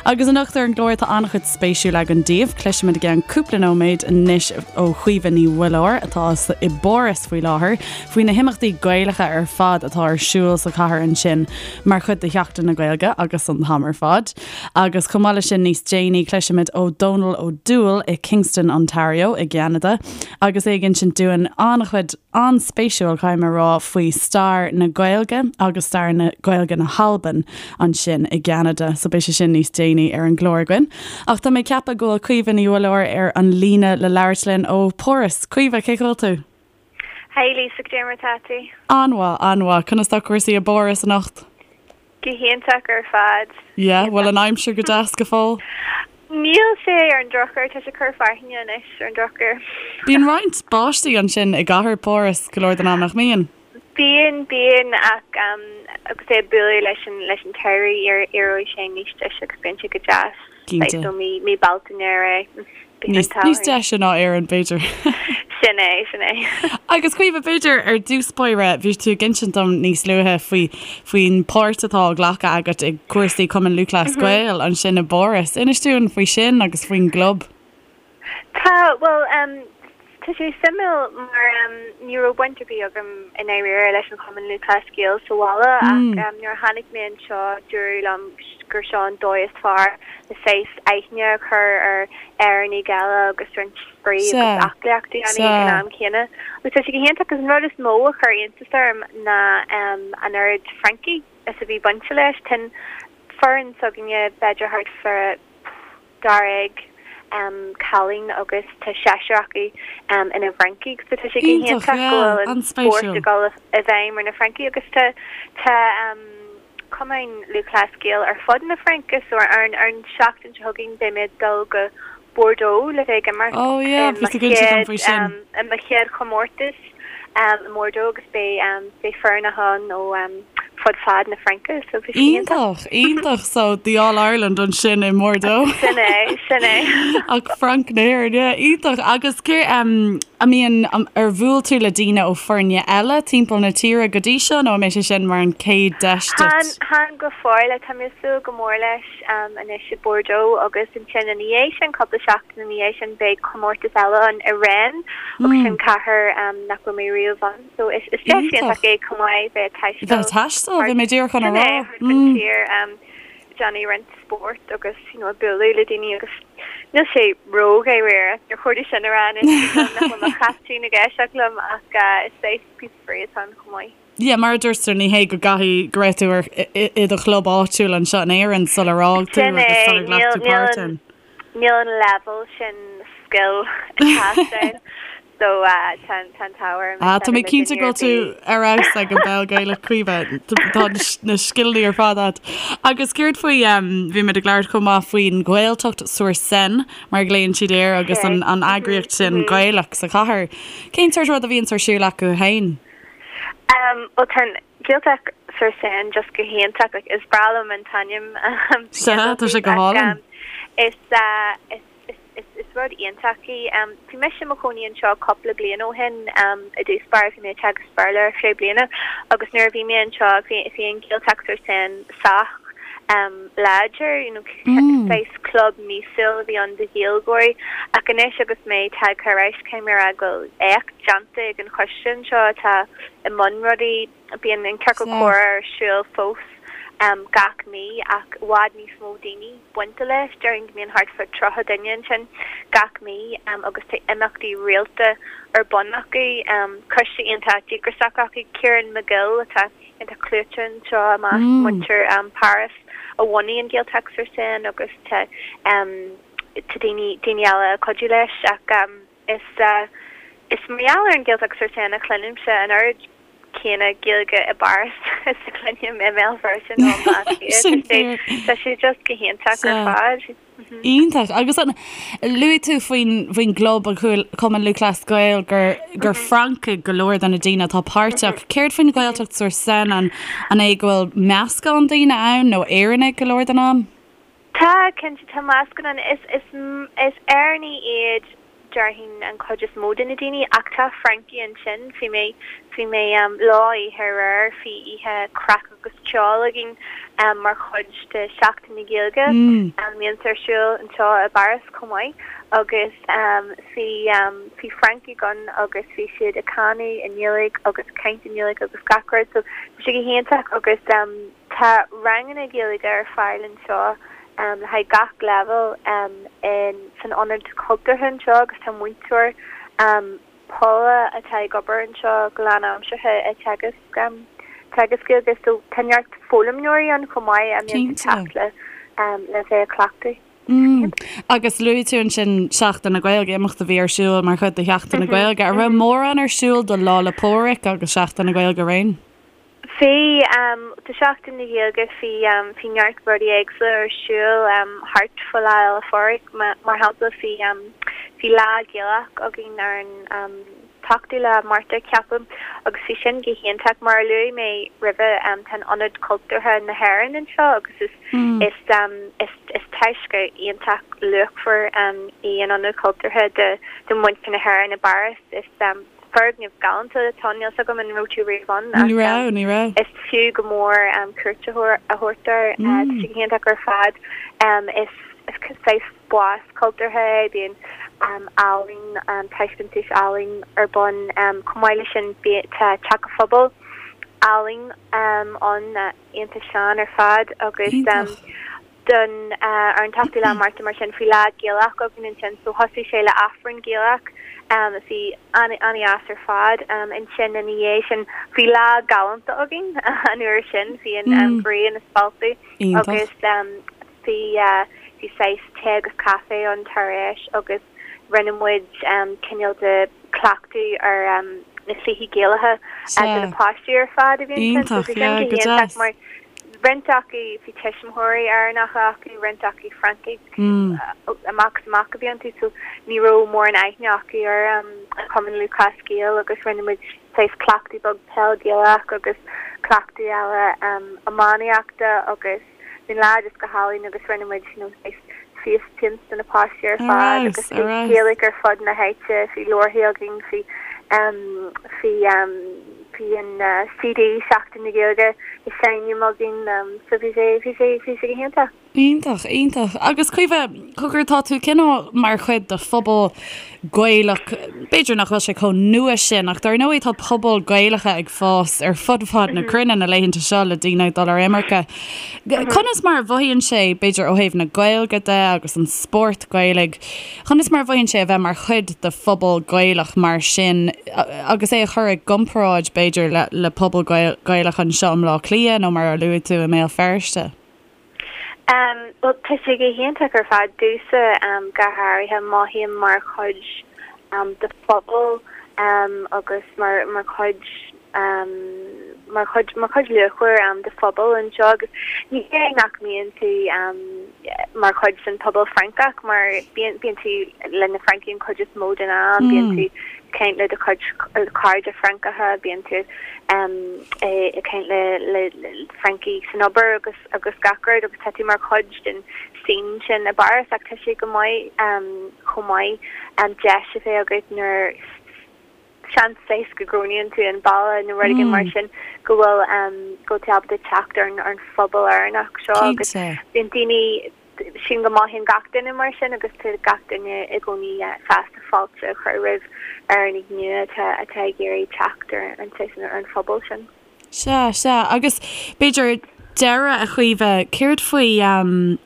Agus anocht ar an gclár tá an-chuid spéisiúil againn daoibh. Cloisfimid i gceann cúpla nóiméad anois ó Chaoimhe Ní Mhuilleoir, atá i bPáras faoi láthair, faoi na himeachtaí Gaelacha ar fad atá ar siúl sa chathair ansin mar chuid de Sheachtain na Gaeilge agus an t-am ar fad. Agus chomh maith leis sin níos déanaí cloisfimid ó Dónal Ó Dúill i Kingston, Ontario i gCeanada agus é ag insint dúinn an-chuid an-spéisiúil, caithfidh mé a rá, faoi stair na Gaeilge agus stair na Gaeilge na hAlban ansin i gCeanada. So beidh sé sin níos déanaí ar an gclár againn. Ach tá mé ag ceapadh go bhfuil Caoimhe Ní Mhuilleoir ar an líne le labhairt linn ó Pháras. Caoimhe, cén chaoi a bhfuil tú? Hey Lisa, goidé mar atá tú? An-mhaith, an-mhaith. Conas tá cúrsaí i bPáras anocht? Go hiontach ar fad. Yeah, bhfuil an aimsir go deas go fóill? Níl sé ar an drochuair, tá sé ag cur fearthainne anois ar an drochuair. Bíonn roinnt báistí ansin i gcathair Pháras go leor den am, nach mbíonn? Bíonn, bíonn, ach agus é ag bualadh leis an leis an tsamhradh éireoidh sé níos deise agus bíonn sé go deas. Cinnte. Ó mí mí Bealtaine ar aghaidh. Níos níos deise ná Éirinn, b'fhéidir. Sin é, sin é. Agus Caoimhe, b'fhéidir ar dtús báire, bhí tú ag insint dom níos luaithe faoi faoin páirt atá á glacadh agat i gcúrsaí Cumann Lúthchleas Gael ansin i bPáras. Inis dúinn faoi sin agus faoin gclub. Tá, bhuel, tá sé suimiúil mar ní raibh baint ar bith agam i ndáiríre leis an Chumann Lúthchleas Gael sa bhaile ach nuair a tháinig mé anseo dúradh liom gur seo an dóigh is fearr le saghas aithne a chur ar Éireannaigh eile agus roinnt spraoi agus aclaíocht a dhéanamh ag an am céanna. Agus tá sé go hiontach agus an rud is mó a chuir iontas orm ná an oiread Francaigh is a bhí bainte leis. Tá an foireann s'againne b'fhéidir thart fá dáréag cailín agus tá seisear acu ina bhFrancaigh so tá sé go hiontach go bhfuil an spórt ag dul i bhfeidhm ar na Francaigh agus tá tá Cumann Lúthchleas Gael ar fud na Fraince so ar an ar an seachtain seo chugainn beidh mé ag dul go Bordeaux le bheith ag imirt i mo chéad i mo chéad chomórtas i mBordeaux agus beidh beidh foirne ann ó fud fad na Fraince so bhí sé iontach. Iontach, iontach so the All Ireland ansin i mBordeaux. Sin é, sin é. Ach Frainc na hÉireann, yeah, iontach. Agus cé an mbíonn, ar bhuail tú le daoine ó foirne eile timpeall na tíre go dtí seo nó an mbeidh sé sin mar an chéad deis duit? Chan go fóill, tá mé ag súil go mór leis anois i Bordeaux agus ansin ina dhiaidh sin, cúpla seachtain ina dhiaidh sin beidh comórtas eile ann i Rennes agus sin cathair nach raibh mé riamh ann so is is deis iontach é chomh maith bheith ag taisteal Bheith ag taisteal, bhí mé díreach chun a Sin rá. é, thart an tír déanamh roinnt spóirt agus you know bualadh le daoine agus níl sé ró-dháiríre, níor chóir domh sin a rá anois nach bhfuil mo chaiptín ag éisteacht liom ach is saghas píosa spraoi atá ann chomh maith. Yeah, mar a dúirt tú, ní hé go gcaithfidh go raibh tú ar i do chlub áitiúil anseo in Éirinn sular fhág tú Sin agus é, sular ghlac níl tú níl páirt an ann. níl an leibhéal sin scil ag teastáil so tá an tá an t-ádh orm Ah, tá mé cinnte go bhfuil tú ar fheabhas ag an bpeil Gaelach Caoimhe. Tá na scileanna ar fad agat. Agus céard faoi, bhí muid ag labhairt chomh maith faoin Ghaeltacht sur Seine, mar a ghlaonn siad air, agus an an eagraíocht sin Gaelach sa chathair. Cén sórt rud a bhíonns ar siúl acu féin? Bhuel tá an Gaeltacht sur Seine just go hiontach, like is breá liom an t-ainm Sea, tá sé go hálainn. Is is is is rud iontach í. Bhí mise i mo chónaí anseo cúpla bliain ó shin i dtús báire, bhí mé ag teagasc Béarla ar feadh bliana agus nuair a bhí mé anseo bhí bhí an Gaeltacht sur Seine sách láidir, you know saghas club míosúil a bhí ann do Ghaeilgeoirí ach anois agus mé tagtha ar ais caithfidh mé a rá go bhfuil éacht déanta ag an choiste anseo atá i mbun rudaí. Bíonn an ciorcal comhrá ar siúl fós gach mí ach i bhfad níos mó daoine bainte leis. Déarfainn go mbíonn thart fá 30 duine ansin gach mí agus tá imeachtaí rialta ar bun acu. Coiste iontach díograiseach acu, Ciarán McGill atá iontach clúiteach anseo i measc muintir Páras a bhunaigh an Gaeltacht sur Seine agus tá tá daoine daoine eile ag cuidiú leis ach is is mar gheall ar an Ghaeltacht sur Seine a chluinimse an oiread céanna Gaeilge i bPáras is a chluinim i mBéal Feirste nó i mBaile Átha Cliath. Sin fíor. Tá sé just go hiontach ar fad. Iontach. Agus an, luaigh tú faoin, faoin gclub, an Cumann Lúthchleas Gael, gur, gur Francaigh go leor de na daoine atá páirteach. Céard faoin Ghaeltacht sur Seine, an, an é go bhfuil meascán daoine ann nó Éireannaigh go leor den am? Tá, cinnte, tá meascán ann. Is, is, is Éireannaigh iad déarfainn an chuid is mó de na daoine ach tá Francaigh ansin. Bhí mé, bhí mé lá oíche aréir, bhí oíche craic agus ceol againn mar chuid de Sheachtain na Gaeilge. mbíonns ar siúl anseo i bPáras chomh maith agus bhí bhí Francaigh ann agus bhí siad ag canadh i nGaeilge agus ag caint i nGaeilge agus gach rud so bhí sé go hiontach agus tá ranganna Gaeilge ar fáil anseo le haghaidh gach leibhéal in san ionad cultúrtha anseo agus tá múinteoir Paula atá ag obair anseo go lánaimseartha ag teagasc teagasc Gaeilge so tá neart foghlaimeoirí ann chomh maith a mbíonn ag teacht le le bheith ag cleachtadh. Mm. Agus luaigh tú ansin Seachtain na Gaeilge, imeacht a bhí ar siúl mar chuid de Sheachtain na Gaeilge. An raibh mórán ar siúl do Lá 'le Pádraig agus Seachtain na Gaeilge araon? Bhí, do Sheachtain na Gaeilge bhí, bhí neart rudaí éagsúla ar siúl thart fá Lá Fhéile Phádraig. Mar shampla bhí, bhí Lá Gaelach againn ar an t-ochtú lá Márta ceapaim agus bhí sin go hiontach. Mar a luaigh mé roimhe tá an Ionad Cultúrtha na hÉireann anseo agus is, is, is, is taisce iontach luachmhar í an Ionad Cultúrtha do, do mhuintir na hÉireann i bPáras. Is. Foirgneamh galánta atá ann, níl 's agam an raibh tú riamh ann ach Ní raibh, ní raibh. is fiú go mór cuairt a thabhairt air. Tá sé go hiontach ar fad. Is saghas spás cultúrtha é, bíonn ealaín, taispeántais ealaín ar bun. Chomh maith leis sin tá teach an phobail álainn ann, iontach sean ar fad agus Iontach. don ar an t-ochtú lá Márta mar sin bhí lá Gaelach againn ansin so thosaigh sé le Aifreann Gaelach a bhí an-dheas ar fad. Ansin ina dhiaidh sin bhí lá galánta againn an uair sin, bhí an ghrian ag spalpadh agus bhí bhí saghas tae agus caife ann tar éis agus rinne muid cineál de cleachtadh ar na cluichí Gaelacha do na páistí ar fad a bhí ansin so bhí sin go hiontach mar roinnt acu bhí tuismitheoirí Éireannacha acu, roinnt acu Francaigh amach is amach a bhí iontu so ní raibh mórán aithne acu ar an Chumann Lúthchleas Gael agus rinne muid saghas cleachtadh beag peil Gaelach agus cleachtadh eile iománaíochta agus Bhí an lá just go hálainn agus rinne muid you know saghas face paints do na páistí ar fad agus bhí Gaeilge ar fud na háite, bhí leabharthaí againn, bhí em bhí em bhí an CD Seachtain na Gaeilge ag seinm againn em so bhí sé bhí sé bhí sé go hiontach. Iontach, iontach. Agus Caoimhe, cogar tá tú cineál mar chuid de phobal Gaelach, b'fhéidir nach bhfuil sé chomh nua sin, ach dar ndóigh tá pobail Gaelacha ag fás ar fud fad na cruinne na laethanta seo le daoine ag dul ar imirce. Conas mar a mhothaíonn sé, b'fhéidir ó thaobh na Gaeilge de agus an spórt Gaelaigh, conas mar a mhothaíonn sé a bheith mar chuid de phobal Gaelach mar sin agus é a chur i gcomparáid b'fhéidir le le pobal Gaelach anseo i mBleá Cliath nó mar a luaigh tú i mBéal Feirste? Bhuel, tá sé go hiontach ar fad domhsa go háirithe. Mothaím mar chuid de phobal agus mar mar chuid mar chuid mar chuid luachmhar de phobal anseo agus ní hé nach mbíonn tú mar chuid den phobal Francach mar bíonn bíonn tú le na Francaigh an chuid is mó den am, bíonn tú ag caint le do chuid cairde Francacha, bíonn tú ag caint le le Francaigh san obair agus agus gach rud agus tá tú mar chuid den scene sin i bPáras ach tá sé go maith chomh maith deis a bheith agat nuair seans saghas go gcronaíonn tú an baile nó rud éigin mar sin go bhfuil go bhfuil tú ábalta teacht ar an ar an phobal Éireannach seo agus bíonn daoine sílim go mothaíonn gach duine mar sin agus tá gach duine i gcónaí sásta fáilte a chur roimh Éireannaigh nua atá atá ag iarraidh teacht ar an saghas ar an phobal sin. Sea, sea. Agus b'fhéidir deireadh, a Chaoimhe, céard faoi,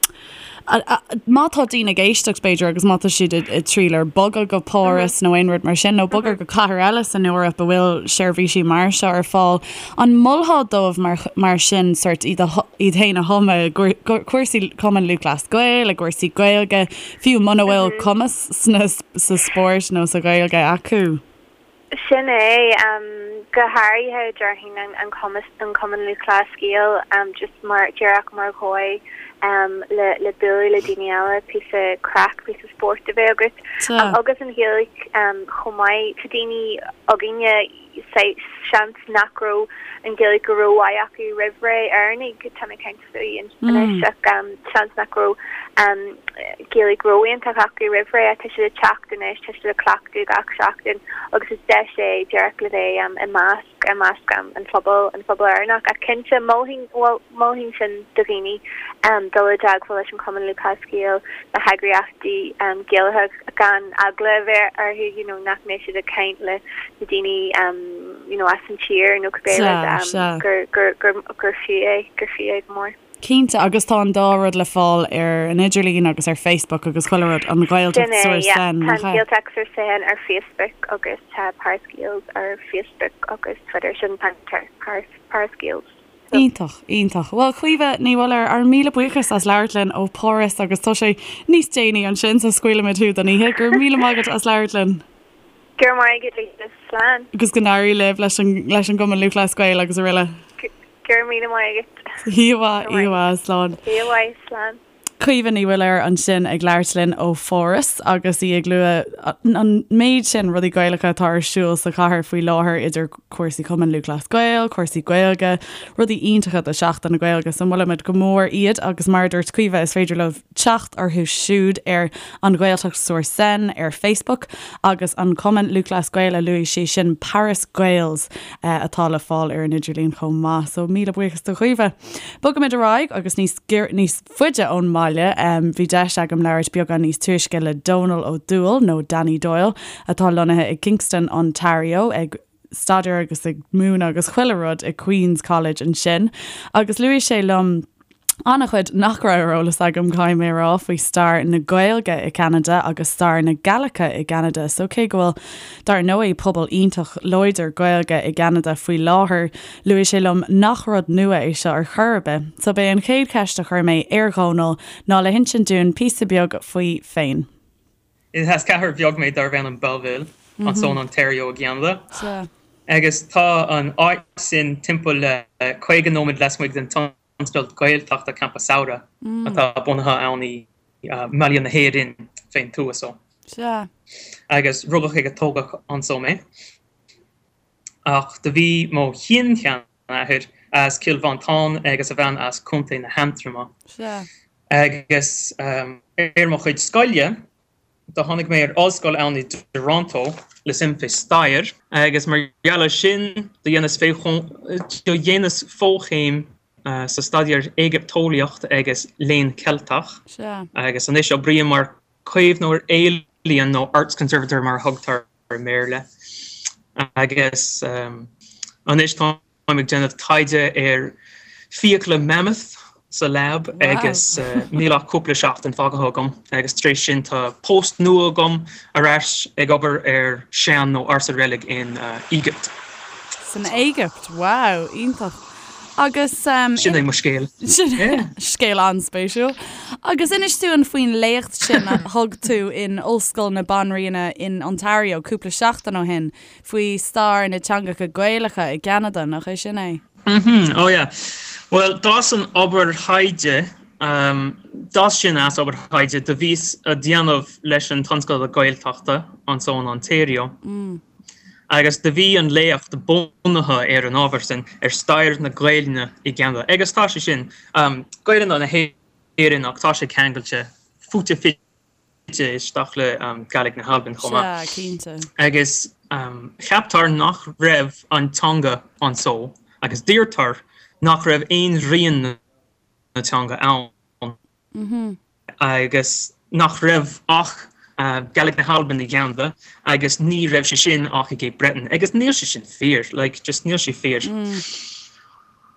má tá daoine ag éisteacht, b'fhéidir, agus má tá siad ag triall ar bogadh go Páras nó aon rud mar sin, nó bogadh go cathair eile san Eoraip a bhfuil seirbhísí mar seo ar fáil, an molfá dóibh mar, mar sin, sórt iad a, iad féin a thumadh i gcúrsaí Cumann Lúthchleas Gael, i gcúrsaí Gaeilge, fiú muna bhfuil cumas sna, sa spórt nó sa Ghaeilge acu? Sin é, go háirithe déarfainn an cumas, an Cumann Lúthchleas Gael, just mar, díreach mar dhóigh le le bualadh le daoine eile, píosa craic, píosa spóirt a bheith agat. Agus an Ghaeilge chomh maith. Tá daoine againne, seans nach raibh an Ghaeilge go rómhaith acu roimh ré, Éireannaigh, tá mé ag caint. faoi anois ach seans nach raibh Gaeilge ró-iontach acu roimh ré ach tá siad ag teacht anois, tá siad ag cleachtadh gach seachtain agus is deis é díreach le bheith i measc, i measc an phobail, an phobal Éireannach. Ach cinnte, mholfainn, bhuel, mholfainn sin do dhaoine. Dul i dteagmháil leis an Chumann Lúthchleas Gael, na heagraíochtaí Gaelacha gan eagla a bheith orthu you know nach mbeidh siad ag caint le na daoine you know as an tír nó cibé rud gur gur gur gur fiú é, gur fiú é go mór. Cinnte, agus tá an dá rud le fáil ar an idirlíon agus ar Facebook agus chuile rud, an Ghaeltacht sur Seine, nach ea? Tá an Ghaeltacht sur Seine ar Facebook agus tá Paris Gaels ar Facebook agus Twitter, sin Paris Paris Gaels. Iontach, iontach. Bhuel, Caoimhe Ní Mhuilleoir, ár míle buíochas as labhairt linn ó Pháras agus tá sé níos déanaí ansin so scaoilfimid thú don oíche. Go raibh míle maith agat as labhairt linn. Go raibh maith agat Lisa. Slán. Agus go n-éirí libh leis an leis an gCumann Lúthchleas Gael agus araile. Go raibh míle maith agat. Oíche mhaith, oíche mhaith, slán. Oíche mhaith, slán. Caoimhe Ní Mhuilleoir ansin ag labhairt linn ó Pháras agus í ag lua an méid sin rudaí Gaelacha atá ar siúl sa chathair faoi láthair idir cúrsaí Cumann Lúthchleas Gael, cúrsaí Gaeilge, rudaí iontacha do Sheachtain na Gaeilge so molaimid go mór iad agus mar a dúirt Caoimhe is féidir libh teacht orthu siúd ar An Ghaeltacht sur Seine ar Facebook agus an Cumann Lúthchleas Gael a luaigh sí sin Paris Gaels atá le fáil ar an idirlíon chomh maith so míle buíochas do Chaoimhe. Bogaimid ar aghaidh agus níos níos faide ón mbaile. Bhí deis agam labhairt beagán níos túisce le Dónal Ó Dúill, nó Danny Doyle, atá lonnaithe i Kingston, Ontario, ag staidéar agus ag múineadh agus chuile rud i Queen's College ansin. Agus luaigh sé liom an-chuid nach raibh ar eolas agam, caithfidh mé a rá, faoi stair na Gaeilge i gCeanada agus stair na Gallaice i gCeanada. So cé go bhfuil, dar ndóigh, pobal iontach láidir Gaeilge i gCeanada faoi láthair, Luaigh sé liom nach rud nua é seo ar chor ar bith, so b'é an chéad cheist a chuir mé ar Dhónal ná le hinsint dúinn píosa beag faoi féin. Is as cathair bheag mé darbh ainm Belleville, anso in Ontario i gCeanada. Agus tá an áit sin timpeall le 50 nóiméad lasmuigh den tionscadal Gaeltachta Campa Samhraidh atá bunaithe ann i mBaile na hÉireann fén tuath so. Agus rugadh agus tógadh anso mé. Ach do bhí mo shin-sheanathair as Cill Mhantáin agus a bhean as Contae na hAntroma. Agus ar mo chuid scoile, do tháinig mé ar ollscoil ann i dToronto le suim fé stair. Agus mar gheall ar sin, do dhéanas do dhéanas fochéim sa staidéar Éigipteolaíocht agus Léann Ceilteach. Agus anois oibrím mar caomhnóir ealaíon nó arts conservator mar a thugtar i mBéarla. Agus anois táim ag déanamh taighde ar fiacla mammoth sa lab agus níl ach cúpla seachtain fágtha agam agus tar éis sin tá post nua agam ar ais ag obair ar sean nó ársa reilig in Éigipt. San Éigipt? Wow, iontach. Agus. Sin é mo scéal. Scéal an-spéisiúil. Agus inis dúinn faoin léacht sin a thug tú in Ollscoil na Banríona in Ontario cúpla seachtain ó shin faoi stair na teangacha Gaelacha i gCeanada, nach é sin é? Mm-hmm, oh yeah. Bhuel, d'fhás an obair thaighde, d'fhás sin as obair thaighde do bhíos a déanamh leis an tionscadal Gaeltachta anso in Ontario. Agus do bhí an léacht bunaithe ar an ábhar sin, ar stair na Gaelainne i gCeanada. Agus tá sé sin, Gaelainne na hÉireann ach tá sé ceangailte, fite fuaite isteach le Gàidhlig na hAlban chomh maith. Sea, cinnte. Agus ceaptar nach raibh an teanga anso, agus deirtear nach raibh aon rian na teanga ann. agus nach raibh ach Gaelic na hAlban i gCeanada agus ní raibh sé sin ach i gCape Breton agus níl sé sin fíor, like, just níl sé fíor.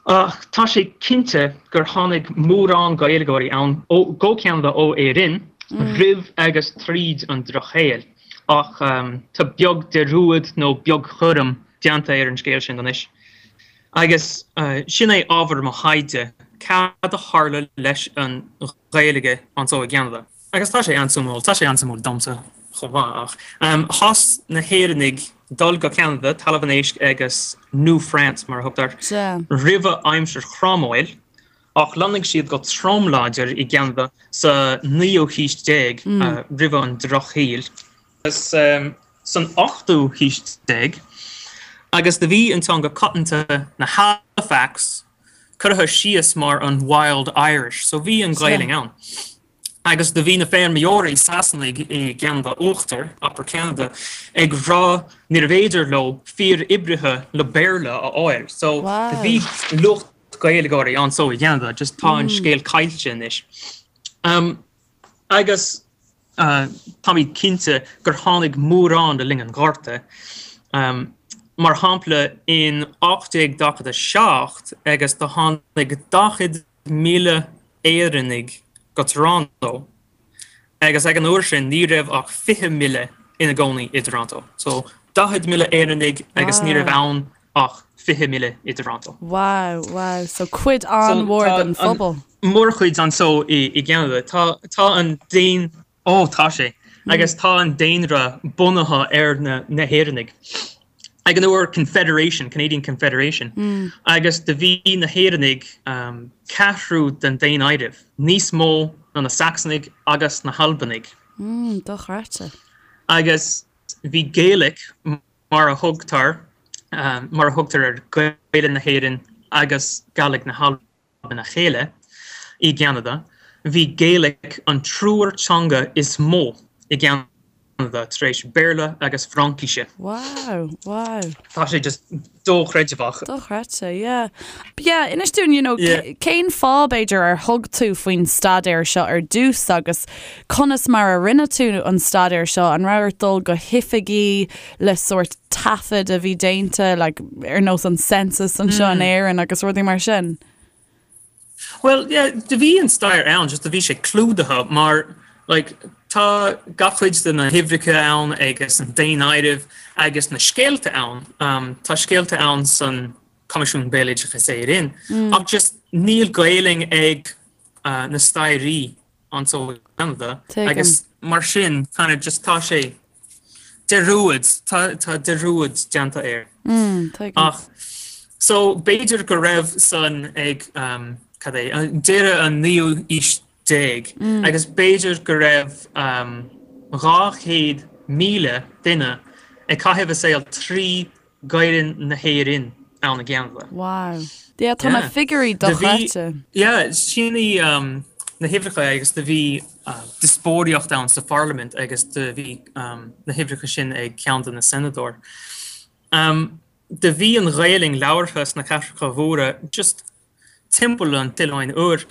Ach tá sé cinnte gur tháinig mórán Gaeilgeoirí ann ó go Ceanada ó Éirinn roimh agus tríd an Drochshaol ach tá beag dearúd nó beagchúram déanta ar an scéal sin anois. Agus sin é ábhar mo thaighde, cad a tharla leis an Ghaeilge anso i gCeanada. Agus tá sé an-suimiúil, tá sé an-suimiúil domsa chomh maith, ach thosaigh na hÉireannaigh dul go Ceanada, Talamh an Éisc agus New France mar a thugtar, roimhe aimsir Chromwell, ach lonnaigh siad go trom láidir i gCeanada sa naoú haois déag, roimhe an Drochshaoil. Agus san ochtú haois déag, agus do bhí an teanga coitianta na Halifax curtha síos mar an Wild Irish, so bhí an Ghaelainn ann. Agus do bhí na feirmeoirí Sasanaigh i gCeanada Uachtar, Upper Canada, ag rá níorbh fhéidir leo fir oibrithe le Béarla a fháil, so do bhí lucht. Gaeilgeoirí anso i gCeanada, just tá an scéal caillte anois. Agus táimid cinnte gur tháinig mórán le linn an Ghorta. Mar shampla, in 1847 agus do tháinig 40,000 Éireannaigh go Toronto agus ag an uair sin ní raibh ach 20,000 ina gcónaí i dToronto. So 40,000 Éireannaigh agus ní raibh ann ach 20,000 i dToronto. Wow, wow. So cuid an-mhór den phobal. Mórchuid anso i gCeanada. Tá, tá an daon, ó tá sé, agus tá an daonra bunaithe ar na, na hÉireannaigh. Ag an uair Confederation, Canadian Confederation, agus do bhí na hÉireannaigh ceathrú den daonáireamh, níos mó ná na Sacsanaigh agus na hAlbanaigh. Dochreidte. Agus bhí Gaelic mar a thugtar mar a thugtar ar Ghaeilge na hÉireann agus Gàidhlig na hAlban a chéile i gCeanada. Bhí Gaelic an triúr teanga is mó i gCeanada tar éis Béarla agus Fraincise. Wow, wow. Tá sé just dochreidmheach. Dochreidte, yeah. But yeah, inis dúinn, you know, yeah. cén fáth b'fhéidir ar thug tú faoin staidéar seo ar dtús agus Conas mar a rinne tú an staidéar seo? An raibh ort dul go hoifigí le sórt taifead a bhí déanta, like, ar nós an census anseo in Éirinn agus rudaí mar sin? Well, yeah, do bhí an stair ann, just do bhí sé clúdaithe mar, like, tá gach cuid de na huimhreacha ann agus an daonáireamh agus na scéalta ann. Um, tá scéalta ann san Coimisiún Béaloideas Éireann, ach just níl Gaelainn ag uh, na stairí anso i gCeanada agus mar sin kind of just tá sé dearúd, tá tá dearúd déanta air. Ach so b'fhéidir go raibh san ag um, cad é, deireadh an naoú aois déag agus b'fhéidir go raibh um, 200,000 duine ag caitheamh a saol trí Gaelainn na hÉireann ann i gCeanada. Wow. Yeah, tá na figiúirí dochreidte. Yeah, sin í na huimhreacha agus do bhí díospóireacht ann sa pharlaimint agus do bhí na huimhreacha sin ag ceann de na senadóir. Do bhí an Ghaelainn labhartha sna cathracha mhóra just timpeall an tOileáin Úir.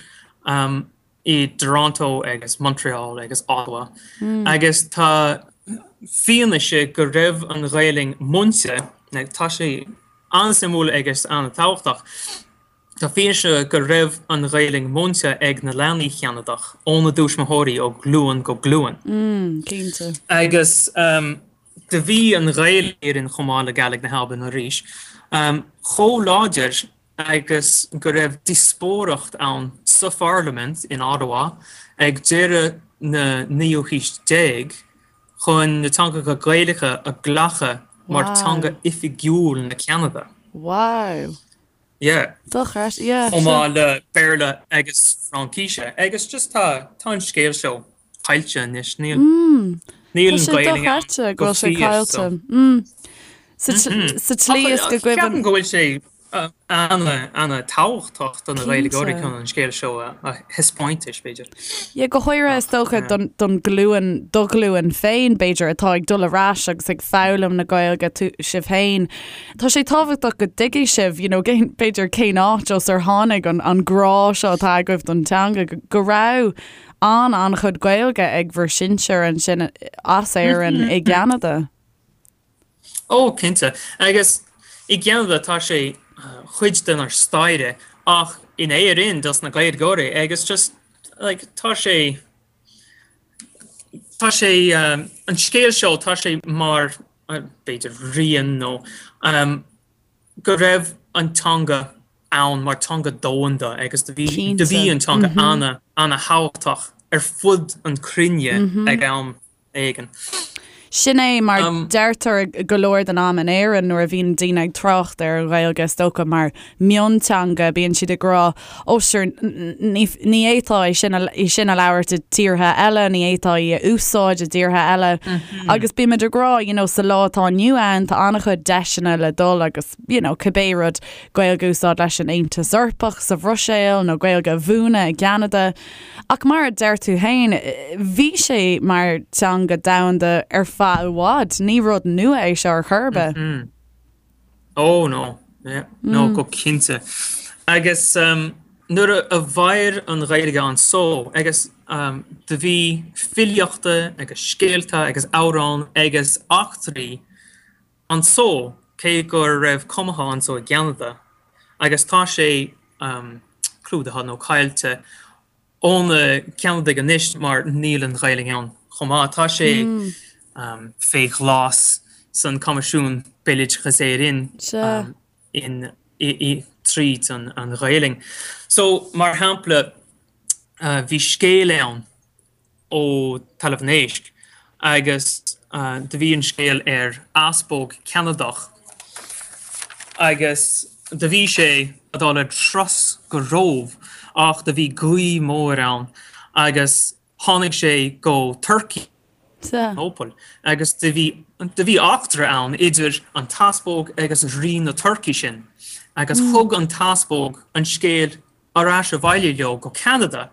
i dToronto agus Montreal agus Ottawa agus tá fianaise go raibh an Ghaelainn múinte, tá sé an-suimiúil agus an-tábhachtach, tá fianaise go raibh an Ghaelainn múinte ag na leanaí Cheanadach óna dtuismitheoirí ó ghlúin go glúin. Cinnte. Agus do bhí an Ghaelainn chomh maith le Gàidhlig na hAlban arís chomh láidir agus go raibh díospóireacht ann sa pharlaimint in Ottawa ag deireadh na naoú haois déag chun na teangacha Gaelacha a ghlacadh mar teanga oifigiúil na Ceanada. Wow. Yeah. Dochreidte, yeah. Chomh maith le Béarla agus Fraincise. Agus just tá tá an scéal seo caillte anois. Níl níl an Ghaelainn ann go fíor so. Sa tslí is go gcuimhin. Ceapaim go bhfuil sé ana-thábhachtach do na Gaeilgeoirí chun an scéal seo a thaispeáint, b'fhéidir. Yeah, go háirithe is dócha don ghlúin, do ghlúin féin, b'fhéidir, atá ag dul ar ais agus ag foghlaim na Gaeilge, tú, sibh féin. Tá sé tábhachtach go dtuigfidh sibh, you know, b'fhéidir cén áit as ar tháinig an, an grá seo atá agaibh don teanga, go raibh an, an-chuid Gaeilge ag bhur sinsir ansin as Éirinn i gCeanada. Ó, cinnte. Agus i gCeanada tá sé chuid denár staire ach in Éirinn dos na Gaeilgeoirí agus just like tá sé tá sé an scéal seo tá sé mar b'fhéidir rian nó go raibh an teanga ann mar teanga domhanda agus do bhí do bhí an teanga ana ana thábhachtach ar fud an cruinne ag am éigin. Sin é mar deirtear go leor den am in Éirinn nuair a bhíonn daoine ag trácht ar an Ghaeilge is dócha mar mionteanga bíonn siad ag rá ó sure ní fhéadfá é sin í sin a labhairt i dtíortha eile, ní fhéadfá í a úsáid i dtíortha eile. Agus bímid ag rá you know sa lá atá inniu ann tá an-chuid deiseanna le dul agus you know cibé rud Gaeilge a úsáid leis an Aontas Eorpach sa Bhruiséil nó Gaeilge a mhúineadh i gCeanada. Ach mar a deir tú féin, bhí sé mar teanga domhanda ar feadh i bhfad. Ní rud nua é seo ar chor ar bith. Oh no, yeah, no, go cinnte. Agus nuair a mhair an Ghaeilge anso agus do bhí filíochta agus scéalta agus amhráin agus eachtraí anso cé go raibh cumadha anso i gCeanada agus tá sé clúdaithe nó caillte ó na Ceanadaigh anois mar níl an Ghaeilge ann chomh maith. Tá sé fé ghlas san Coimisiún Béaloideas Éireann in tríd an Ghaelainn. So, mar shampla, bhí scéal ann ó Talamh an Éisc agus do bhí an scéal ar easpóg Ceanadach agus do bhí sé a dul ar turas go Róimh ach do bhí gaoth mór ann agus tháinig sé go Turkey Nópaill agus do bhí do bhí eachtra ann idir an t-easpóg agus rí na Turkey sin agus thug an t-easpóg an scéal ar ais abhaile leo go Ceanada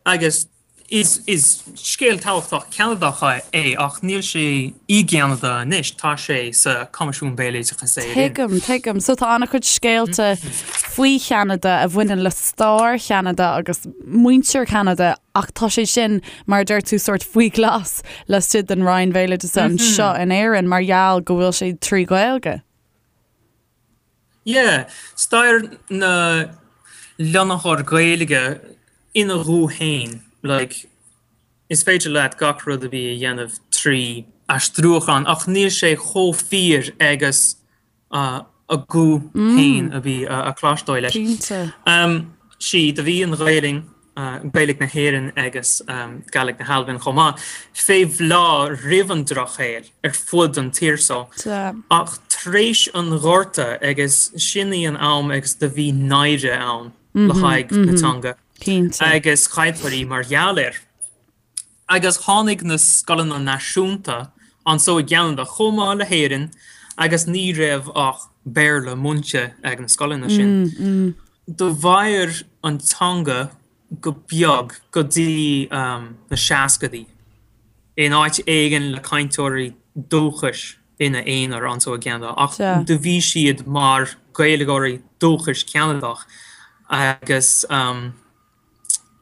agus is is scéal tábhachtach Ceanadach é ach níl sé i gCeanada anois, tá sé sa Coimisiún Béaloideasa Éireann. Tuigim, tuigim. So tá an-chuid scéalta faoi Cheanada a bhaineann le stair Cheanada agus muintir Cheanada ach tá sé sin, mar a deir tú, sórt faoi ghlas laistigh den Roinn Bhéaloideasa anseo in Éirinn mar gheall go bhfuil sé trí Ghaeilge. Yeah, stair na lonnaitheoir Gaeilge ina ghuth féin, like, is féidir leat gach rud a bhí a dhéanamh trí aistriúchán ach níl sé chomh fíor agus a guth féin a bhí a cloisteáil leis. Cinnte. Sea, do bhí an Ghaelainn Gaeilge na hÉireann agus Gàidhlig na hAlban chomh maith, fé bhláth roimh an Drochshaol ar fud an tír so. Ach tar éis an Ghorta agus sin í an am agus do bhí náire ann le haghaidh na teanga agus chailltear í mar gheall air. Agus tháinig na scoileanna náisiúnta anso i gCeanada chomh maith le hÉirinn agus ní raibh ach Béarla múinte ag na scoileanna sin. Do mhair an teanga go beag go dtí na seascadaí in áit éigin le cainteoirí dúchais ina aonar anso i gCeanada ach do bhí siad mar Gaeilgeoirí dúchais Ceanadach agus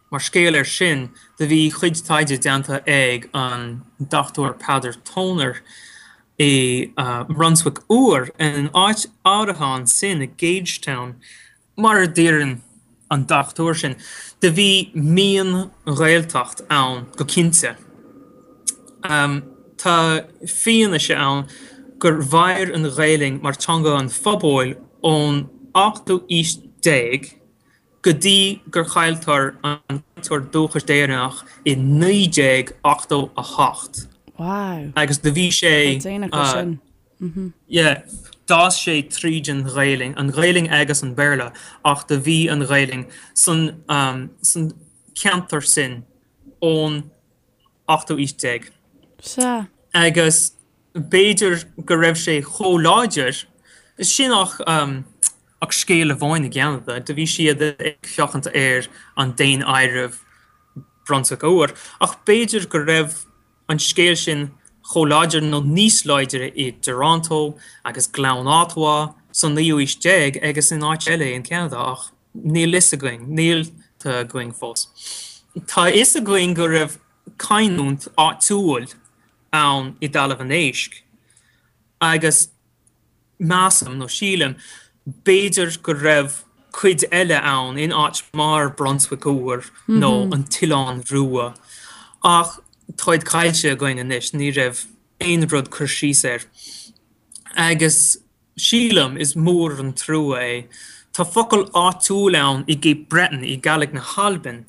Mar scéal air sin, do bhí cuid taighde déanta ag an Dr Peadar Toner i mBrunswick Úr, in áit áirithe ansin i Gagetown, mar a deireann an dochtúir sin, do bhí mion-Ghaeltacht ann go cinnte. Tá fianaise ann gur mhair an Ghaelainn mar teanga an phobail ón ochtú aois déag go dtí gur chailltear an cainteoir dúchais deireanach i 1988. Wow. Agus do bhí sé. Tá déanach leis sin. Yeah, d'fhás sé tríd an Ghaelainn, an Ghaelainn agus an Béarla, ach do bhí an Ghaelainn san san ceantar sin ón ochtú aois déag. Sea. Agus b'fhéidir go raibh sé chomh láidir sin ach ach scéal amháin i gCeanada, do bhí siad ag féachaint ar an daonáireamh Brunswick Úr, ach b'fhéidir go raibh an scéal sin chomh láidir nó níos láidre i dToronto agus Gleann Ottawa san naoú aois déag agus in áit eile in Ceanada ach níl fhios againn, níl tá againn fós. Tá fhios againn go raibh canúint áitiúil ann i dTalamh an Éisc agus measaim, nó sílim, b'fhéidir go raibh cuid eile ann in áit mar Brunswick Úr nó an tOileán Rua ach táid caillte againn anois, ní raibh aon rud cur síos air. Agus sílim, is mór an trua é. Tá focal áitiúil ann i gCape Breton i Gàidhlig na hAlban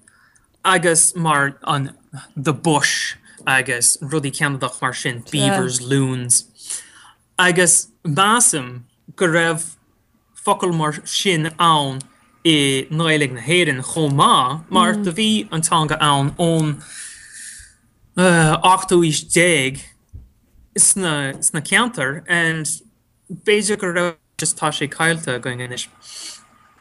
agus mar an the bush agus rudaí Ceanadach mar sin, beavers, loons. Agus measaim go raibh focal mar sin ann i nGaeilge na hÉireann chomh maith mar do bhí an teanga ann ón ochtú aois déag sna sna ceantair and b'fhéidir go raibh just tá sé caillte againn anois.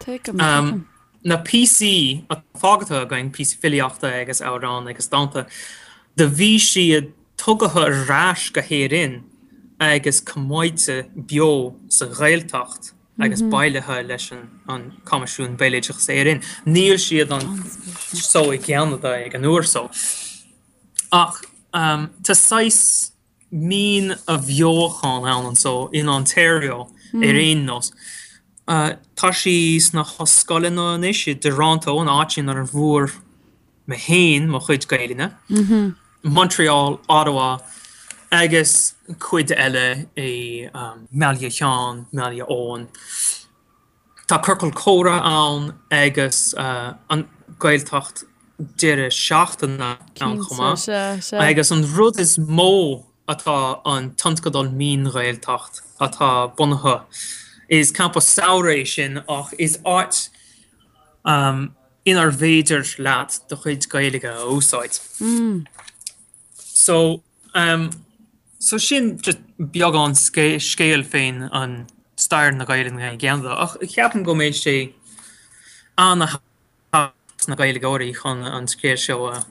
Tuigim, tuigim. Na píosaí atá fágtha againn, píosaí filíochta agus amhráin agus dánta, do bhí siad tugtha ar ais go hÉirinn agus coimeádta beo sa Ghaeltacht. agus bailithe leis an Coimisiún Béaloideas Éireann. Níl siad anso i gCeanada ag an uair so. Ach tá saghas mín-athbheochan ann anso in Ontario ar aon nós. Tá sí sna hollscoileanna anois i dToronto, an áit inar bhfuair mé féin mo chuid Gaelainne, Montreal, Ottawa agus cuid eile i mBaile Sheáin, mBaile Eoin. Tá ciorcal comhrá ann agus an Gaeltacht deireadh seachtaine ann chomh maith. Agus an rud is mó atá an tionscadal Mín-Ghaeltacht atá bunaithe. Is campa samhraidh é sin ach is áit inar bhféidir leat do chuid Gaeilge a úsáid. So, so sin just beagán scéil fén an stair na Gaelainne i gCeanada ach ceapaim go mbeidh sé ana-thábhachtach sna Gaeilgeoirí chun an scéal seo a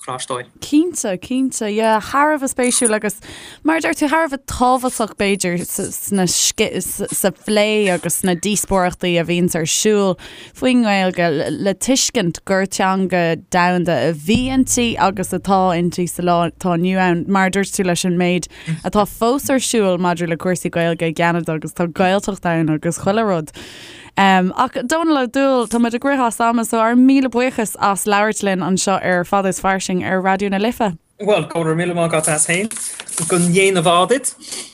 chloisteáil. Cinnte, cinnte, yeah, thar a bheith spéisiúil agus mar a deir tú thar a bheith tábhachtach b'fhéidir sna sa phlé agus sna díospóireachtaí a bhíonns ar siúl faoin nGaeilge le tuiscint gur teanga domhanda a bhí inti agus atá inti sa lá atá inniu ann, mar a dúirt tú leis an méid atá fós ar siúl maidir le cúrsaí Gaeilge i gCeanada agus tá Gaeltacht ann agus chuile rud. Ach Dónal Ó Dúill, tá muid ag rith as ama so ár míle buíochas as labhairt linn anseo ar Fada is Fairsing ar Raidió na Life. Bhuel, go raibh míle maith agat as féin. Go ndéana ádh duit.